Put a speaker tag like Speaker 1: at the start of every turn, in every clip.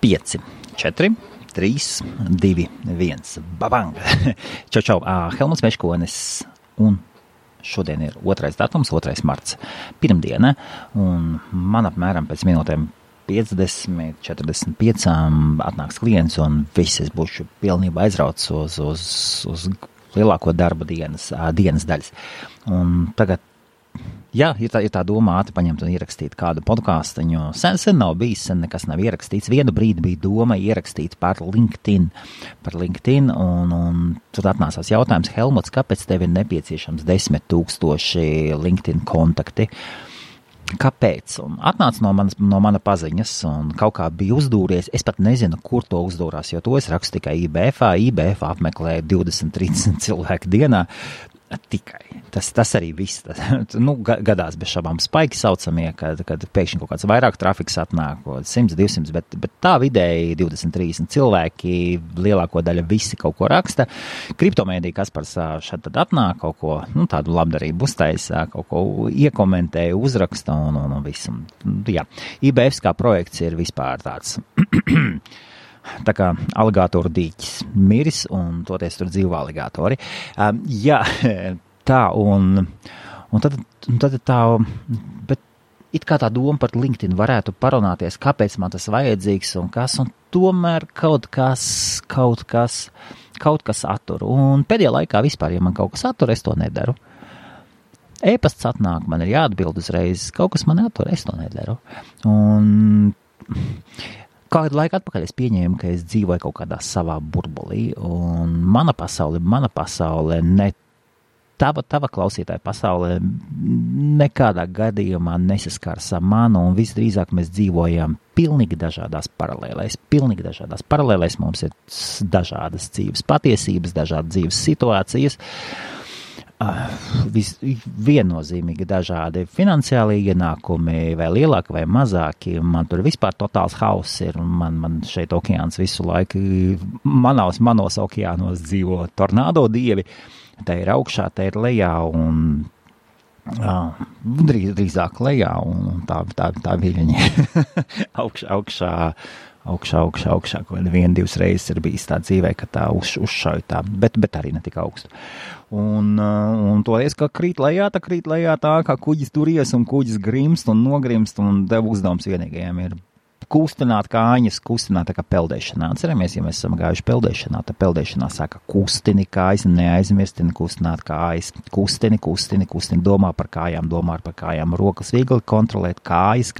Speaker 1: 5, 4, 3, 2, 1. Babang! Čau! Helmuts Meškonis un šodien ir 2. datums, 2. marts. Pirmdiena, un man apmēram pēc minūtēm 50, 45 atnāks klients, un viss es būšu pilnībā aizrauts uz lielāko darba dienas daļas. Un tagad jā, ir tā doma ātri paņemt un ierakstīt kādu podcastiņu. Sen nav bijis, sen nekas nav ierakstīts. Vienu brīdi bija doma ierakstīt par LinkedIn, un tad atnācās jautājums, Helmuts, kāpēc tev ir nepieciešams 10 000 LinkedIn kontakti? Kāpēc? Un atnāca no mana paziņas, un kaut kā bija uzdūries. Es pat nezinu, kur to uzdūrās, jo to es rakstu tikai IBF apmeklēju 20-30 cilvēku dienā. Tikai. Tas arī viss. Gadās bez šabām spaiki saucamie, kad pēkšņi kaut kāds vairāk trafiks atnāk, 100, 200, bet tā vidēji 20-30 cilvēki, lielāko daļa visi kaut ko raksta. Kriptomēdija Kaspars šad tad atnāk, kaut ko, tādu labdarību uztaisa, kaut ko iekomentēja, uzraksta un visu. Jā, IBFs kā projekts ir vispār tāds... Tā kā aligātoru dīķis miris, un toties tur dzīvo aligātori. Jā, tā, un tad tā, bet it kā tā doma par LinkedIn varētu parunāties, kāpēc man tas vajadzīgs un kas, un tomēr kaut kas attur. Un pēdējā laikā vispār, ja man kaut kas attur, es to nedaru. E-pasts atnāk, man ir jāatbild uzreiz, kaut kas man attur, es to nedaru. Un... Kādu laiku atpakaļ es pieņēmu, ka es dzīvoju kaut kādā savā burbulī, un mana pasaule, ne tava klausītāja pasaule nekādā gadījumā nesaskars ar manu, un visdrīzāk mēs dzīvojam pilnīgi dažādās paralēlēs. Mums ir dažādas dzīves patiesības, dažādas dzīves situācijas. Viennozīmīgi dažādi finansiāli ienākumi, vai lielāki vai mazāki. Man tur vispār totāls hauss ir, un man šeit okeāns visu laiku, manos okeānos dzīvo tornādo dievi. Tā ir augšā, tā ir lejā, un drīzāk lejā, un tā viļņi augšā, ko 1-2 reizes ir bijis tā dzīvē, ka tā uzšauj tā, bet arī ne tik augstu. Un toreiz, ka krīt lejā tā, kā kuģis turies un kuģis grimst un nogrimst, un tev uzdevums vienīgajiem ir kustināt kājas, kustināt tā kā peldēšanā. Atceramies, ja mēs esam gājuši peldēšanā, tad peldēšanā saka kustini kājas, neaizmirstini kustināt kājas, kustini, domā par kājām, rokas viegli kontrolēt, kājas.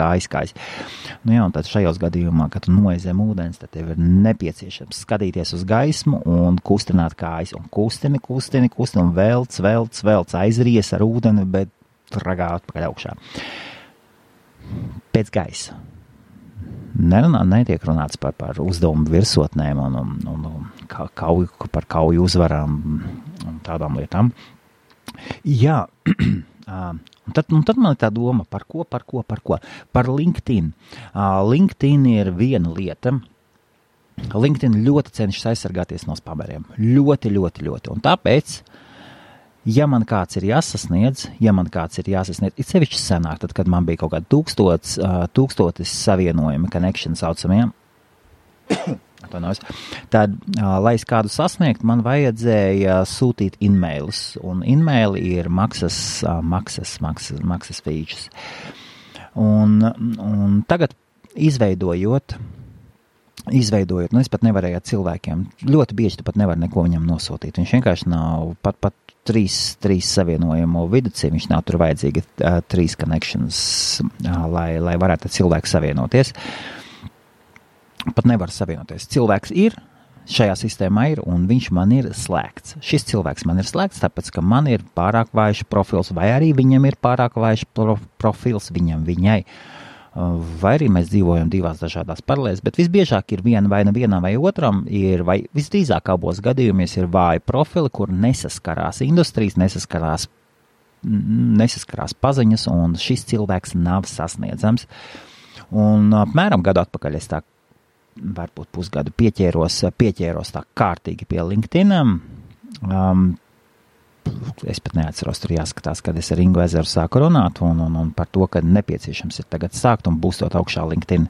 Speaker 1: Nu jā, un tad šajos gadījumā, kad tu noies zem ūdens, tad tev ir nepieciešams skatīties uz gaismu un kustināt kājas, un kustini, un velc, aizries ar ūdeni, bet ragā atpakaļ augšā. Pēc gaisa. Netiek runāts par uzdevumu virsotnēm un par kauju uzvarām un tādām lietām. Jā, un tad man ir tā doma, par ko? Par LinkedIn. LinkedIn ir viena lieta. LinkedIn ļoti cenšas aizsargāties no spameriem. Ļoti. Un tāpēc, ja man kāds ir jāsasniedz, it sevišķi senāk, tad, kad man bija kaut kādi 1000 savienojumi, connection saucamiem, tad, lai es kādu sasniegt, man vajadzēja sūtīt e-mailus, un e-maili ir maksas features. Un tagad izveidojot, es pat nevarēju cilvēkiem, ļoti bieži tu pat nevar neko viņam nosūtīt. Viņš vienkārši nav pat 3 savienojumu viducī, viņš nav tur vajadzīgi 3 connections, lai varētu cilvēki savienoties. Pat nevar savienoties. Cilvēks ir, šajā sistēmā ir, un viņš man ir slēgts. Šis cilvēks man ir slēgts, tāpēc, ka man ir pārāk vājš profils, vai arī viņam ir pārāk vājš profils viņai. Vai arī mēs dzīvojam 2 dažādās paralēlēs, bet visbiežāk ir vienam vai otram, vai visdrīzāk abos gadījumos ir vāji profili, kur nesaskarās industrijas, nesaskarās paziņas, un šis cilvēks nav sasniedzams. Un apmēram gadu atpakaļ es tā, varbūt pusgadu pieķēros tā kārtīgi pie LinkedIn. es pat neatceros, tur jāskatās, kad es ar Ingu Ezeru sāku runāt un par to, ka nepieciešams ir tagad sākt un būstot augšā LinkedIn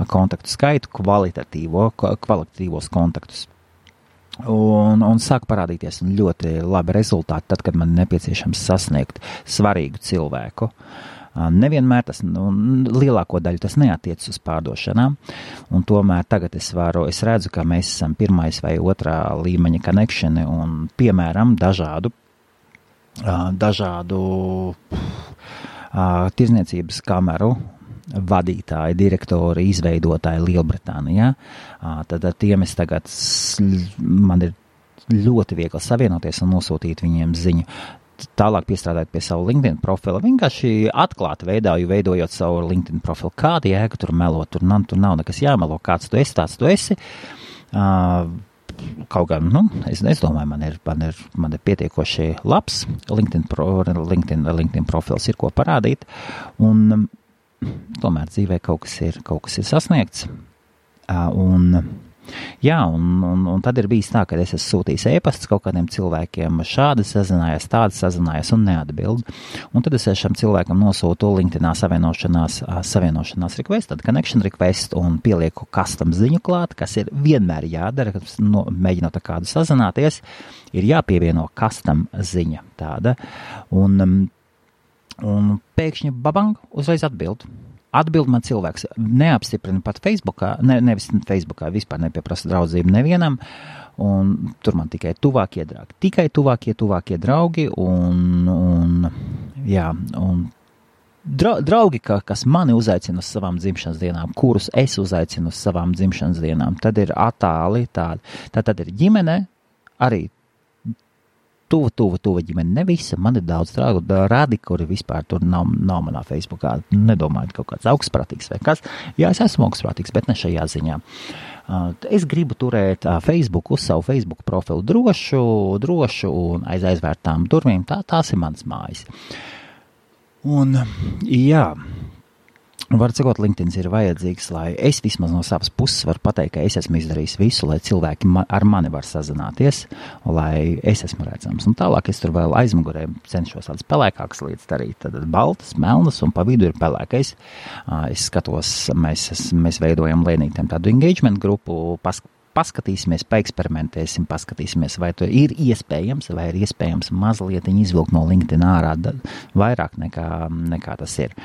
Speaker 1: kontaktu skaitu, kvalitatīvos kontaktus. Un sāk parādīties ļoti labi rezultāti tad, kad man nepieciešams sasniegt svarīgu cilvēku. Nevienmēr tas, lielāko daļu tas neatiec uz pārdošanām, un tomēr tagad es redzu, ka mēs esam pirmais vai otrā līmeņa connectioni un, piemēram, dažādu tirzniecības kameru vadītāji, direktori, izveidotāji Lielbritānijā. Tad ar tiem es tagad, man ir ļoti viegli savienoties un nosūtīt viņiem ziņu. Tālāk piestrādājot pie savu LinkedIn profila, vienkārši atklāti veidojot savu LinkedIn profilu. Kāda jēga tur melot, tur nav nekas jāmelo, kāds tu esi, tāds tu esi. Kaut gan, es domāju, man ir pietiekoši labs LinkedIn profils, ir ko parādīt, un tomēr dzīvē kaut kas ir sasniegts. Un tad ir bijis tā, ka es esmu sūtījis e-pastus kaut kādiem cilvēkiem, šādi sazinājās un neatbild. Un tad es šam cilvēkam nosūtu LinkedInā savienošanās request, tad connection request un pielieku custom ziņu klāt, kas ir vienmēr jādara, kad mēģinot ar kādu sazināties, ir jāpievieno custom ziņa tāda. Un pēkšņi babang, uzreiz atbild. Atbild man cilvēks, neapstiprina pat Facebookā, nevis Facebookā, vispār nepieprasa draudzību nevienam, un tur man tikai tuvākie draugi, un draugi, kas mani uzaicina uz savām dzimšanas dienām, kurus es uzaicinu uz savām dzimšanas dienām, tad ir attāli tādi. Tad ir ģimene, arī tuva ģimene, ne visa, man ir daudz rādi, kuri vispār tur nav manā Facebookā, nedomāju, kaut kāds augstprātīgs vai kas. Jā, es esmu augstprātīgs, bet ne šajā ziņā. Es gribu turēt Facebook uz savu Facebook profilu drošu un aiz aizvērtām durvīm, tās ir manas mājas. Un, jā, var cikot, LinkedIn ir vajadzīgs, lai es vismaz no savas puses varu pateikt, ka es esmu izdarījis visu, lai cilvēki ar mani var sazināties, lai es esmu redzams. Un tālāk es tur vēl aizmugurē cenšos tādas pelēkākas lietas darīt, tad baltas, melnas un pa vidu ir pelēkais. Es skatos, mēs veidojam lēnītiem tādu engagement grupu, paskatīsimies, paeksperimentēsim, paskatīsimies, vai to ir iespējams mazliet izvilkt no LinkedIn ārā vairāk nekā tas ir.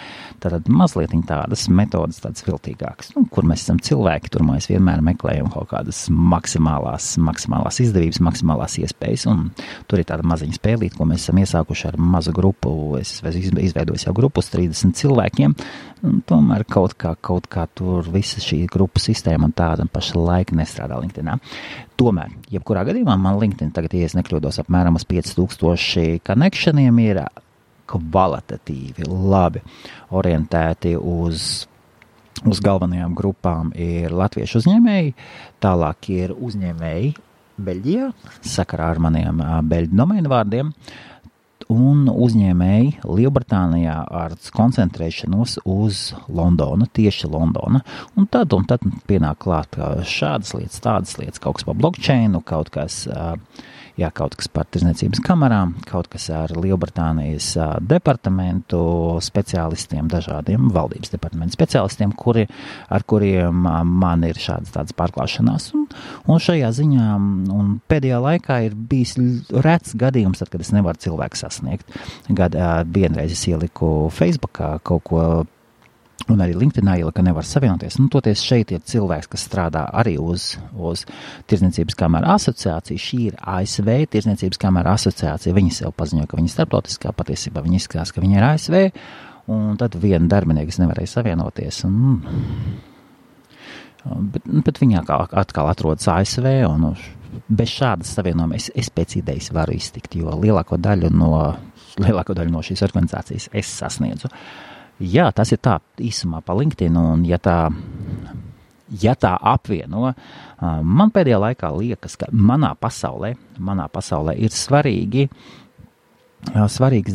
Speaker 1: Tātad mazliet tādas metodas, tādas viltīgākas, kur mēs esam cilvēki, tur mēs vienmēr meklējam kaut kādas maksimālās izdevības, maksimālās iespējas, un tur ir tāda maziņa spēlīt, ko mēs esam iesākuši ar mazu grupu, es izveidojis jau grupu uz 30 cilvēkiem, un tomēr kaut kā tur visa šī grupu sistēma un tāda paša laika nestrādā LinkedInā. Tomēr, jebkurā gadījumā man LinkedIn tagad, ja es nekļūdos, apmēram uz 5000 connectioniem ir kvalitatīvi, labi orientēti uz galvenajām grupām ir latviešu uzņēmēji, tālāk ir uzņēmēji Beļģijā, sakarā ar maniem beļģu domēnu vārdiem, un uzņēmēji Lielbritānijā ar koncentrēšanos uz Londonu, tieši Londona. Un tad pienāk klāt šādas lietas, tādas lietas, kaut kas par blockchainu, kaut kas par tirzniecības kamerām, kaut kas ar Lielbritānijas departamentu speciālistiem, dažādiem valdības departamentu speciālistiem, ar kuriem man ir tādas pārklāšanās. Un šajā ziņā un pēdējā laikā ir bijis rets gadījums, tad, kad es nevaru cilvēku sasniegt. Vienreiz es ieliku Facebookā kaut ko, un arī LinkedInā ielika, ka nevar savienoties. Toties šeit ir cilvēks, kas strādā arī uz Tirzniecības kameru asociāciju. Šī ir ASV Tirzniecības kameru asociācija. Viņi sev paziņo, ka viņi ir starptautiskā, patiesībā viņi izskatās, ka viņi ir ASV, un tad viena darbinieks nevarēja savienoties. Bet viņa atkal atrodas ASV, un bez šādas savienojuma es pēc idejas varu iztikt, jo lielāko daļu no šīs organizācijas es sasniedzu. Jā, tas ir tā īsumā pa LinkedIn, un ja tā apvieno, man pēdējā laikā liekas, ka manā pasaulē ir svarīgas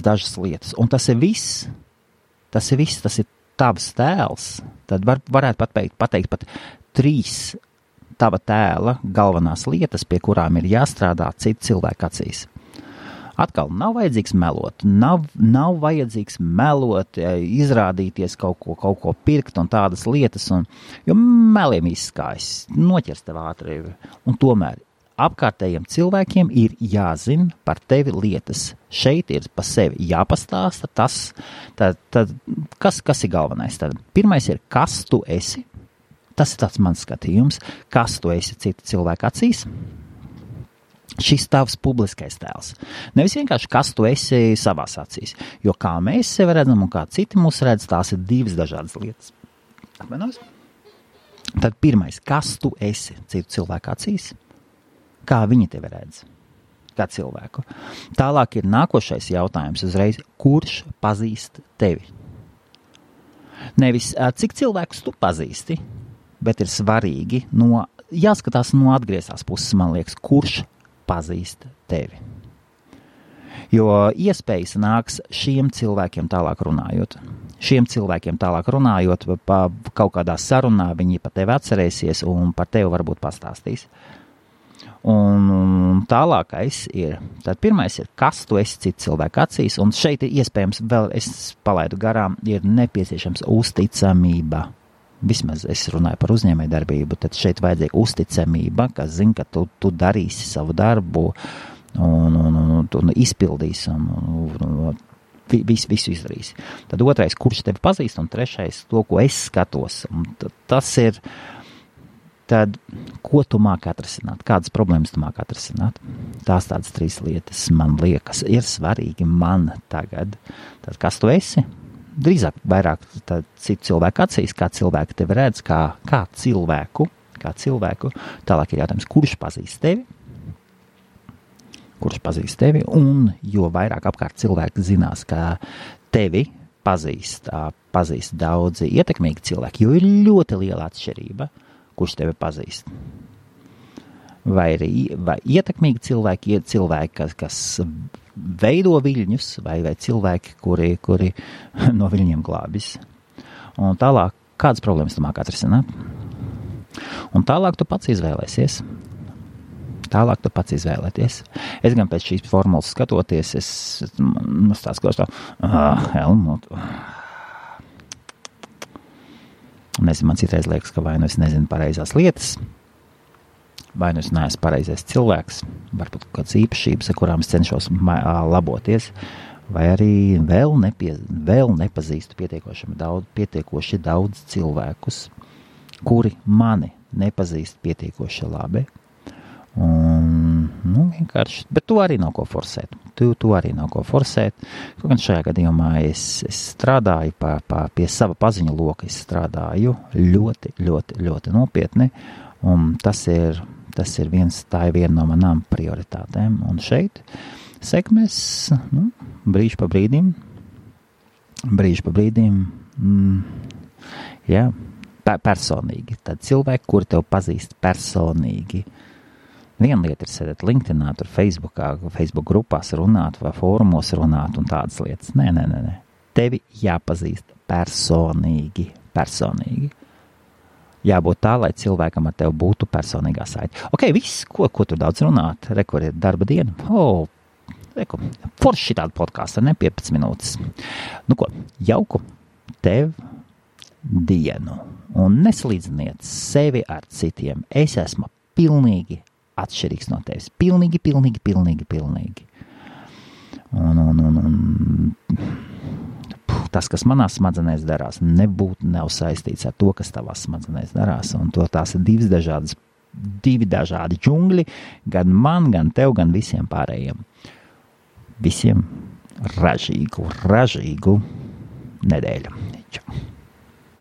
Speaker 1: dažas lietas, un tas ir viss, tas ir tavs tēls, tad varētu pateikt pat 3 tava tēla galvenās lietas, pie kurām ir jāstrādā citu cilvēku acīs. Atkal nav vajadzīgs melot, nav vajadzīgs melot, izrādīties kaut ko pirkt un tādas lietas, jo meliem izskājas, noķers tev ātri. Un tomēr apkārtējiem cilvēkiem ir jāzina par tevi lietas. Šeit ir pa sevi jāpastāsta tas, tad kas ir galvenais? Tad pirmais ir, kas tu esi? Tas ir tāds mans skatījums, kas tu esi citu cilvēku acīs. Šis tavs publiskais tēls. Nevis vienkārši, kas tu esi savās acīs. Jo kā mēs sevi redzam un kā citi mūs redz, tās ir divas dažādas lietas. Atmenos? Tad pirmais, kas tu esi citu cilvēku acīs? Kā viņi tevi redz? Kā cilvēku? Tālāk ir nākošais jautājums uzreiz, kurš pazīst tevi? Nevis, cik cilvēkus tu pazīsti, bet ir svarīgi, jāskatās no atgriezās puses, man liekas, kurš pazīst tevi. Jo iespējas nāks šiem cilvēkiem tālāk runājot. Pa kaut kādā sarunā viņi par tevi atcerēsies un par tevi varbūt pastāstīs. Un tālākais ir, tad pirmais ir, kas tu esi citu cilvēku acīs, un šeit ir iespējams, vēl es palaidu garām, ir nepieciešams uzticamība. Vismaz es runāju par uzņēmējdarbību, tad šeit vajadzīga uzticamība, kas zina, ka tu darīsi savu darbu un izpildīsi un visu izdarīsi. Tad otrais, kurš tevi pazīst, un trešais, to, ko es skatos. Un tas ir, tad, ko tu māki atrisināt, kādas problēmas tu māki atrisināt. Tās tādas trīs lietas, man liekas, ir svarīgi man tagad. Tad, kas tu esi? Drīzāk vairāk citu cilvēku acīs, kā cilvēki tevi redz, kā cilvēku. Tālāk ir jautājums, kurš pazīst tevi, un jo vairāk apkārt cilvēki zinās, ka tevi pazīst daudzi ietekmīgi cilvēki, jo ir ļoti liela atšķirība, kurš tevi pazīst. Vai ietekmīgi cilvēki ir cilvēki, kas veido viļņus, vai cilvēki, kuri no viļņiem glābis. Un tālāk, kādas problēmas tu māki atrisināt? Un tālāk tu pats izvēlēsies. Es gan pēc šīs formulas skatoties, es tās klausu Helmut. Nezinu, man citreiz liekas, ka vai nu es nezinu pareizās lietas, vai nu es neesmu pareizais cilvēks, varbūt kādas īpašības, ar kurām es cenšos laboties, vai arī vēl nepazīstu pietiekoši daudz cilvēkus, kuri mani nepazīst pietiekoši labi. Un, vienkārši, bet tu arī nav ko forsēt. Kaut gan šajā gadījumā es strādāju pie sava paziņu loka, es strādāju ļoti, ļoti, ļoti nopietni, un tā ir viena no manām prioritātēm. Un šeit sekmēs brīži pa brīdim, personīgi. Tad cilvēki, kuri tev pazīst personīgi. Viena lieta ir sēdēt LinkedInā, tur Facebook grupās runāt vai fórumos runāt un tādas lietas. Nē. Tevi jāpazīst personīgi. Jābūt tā, lai cilvēkam ar tevi būtu personīgā saite. Ok, viss, ko tur daudz runāt, kur ir darba diena. Forši tāda podkāsta, 15 minūtes. Jauku tev dienu un nesalīdziniet sevi ar citiem. Es esmu pilnīgi atšķirīgs no tevis. Pilnīgi. Un tas, kas manās smadzenēs darās, nav saistīts ar to, kas tavās smadzenēs darās. Un tās ir divi dažādi džungļi, gan man, gan tev, gan visiem pārējiem. Visiem ražīgu nedēļu. Čau.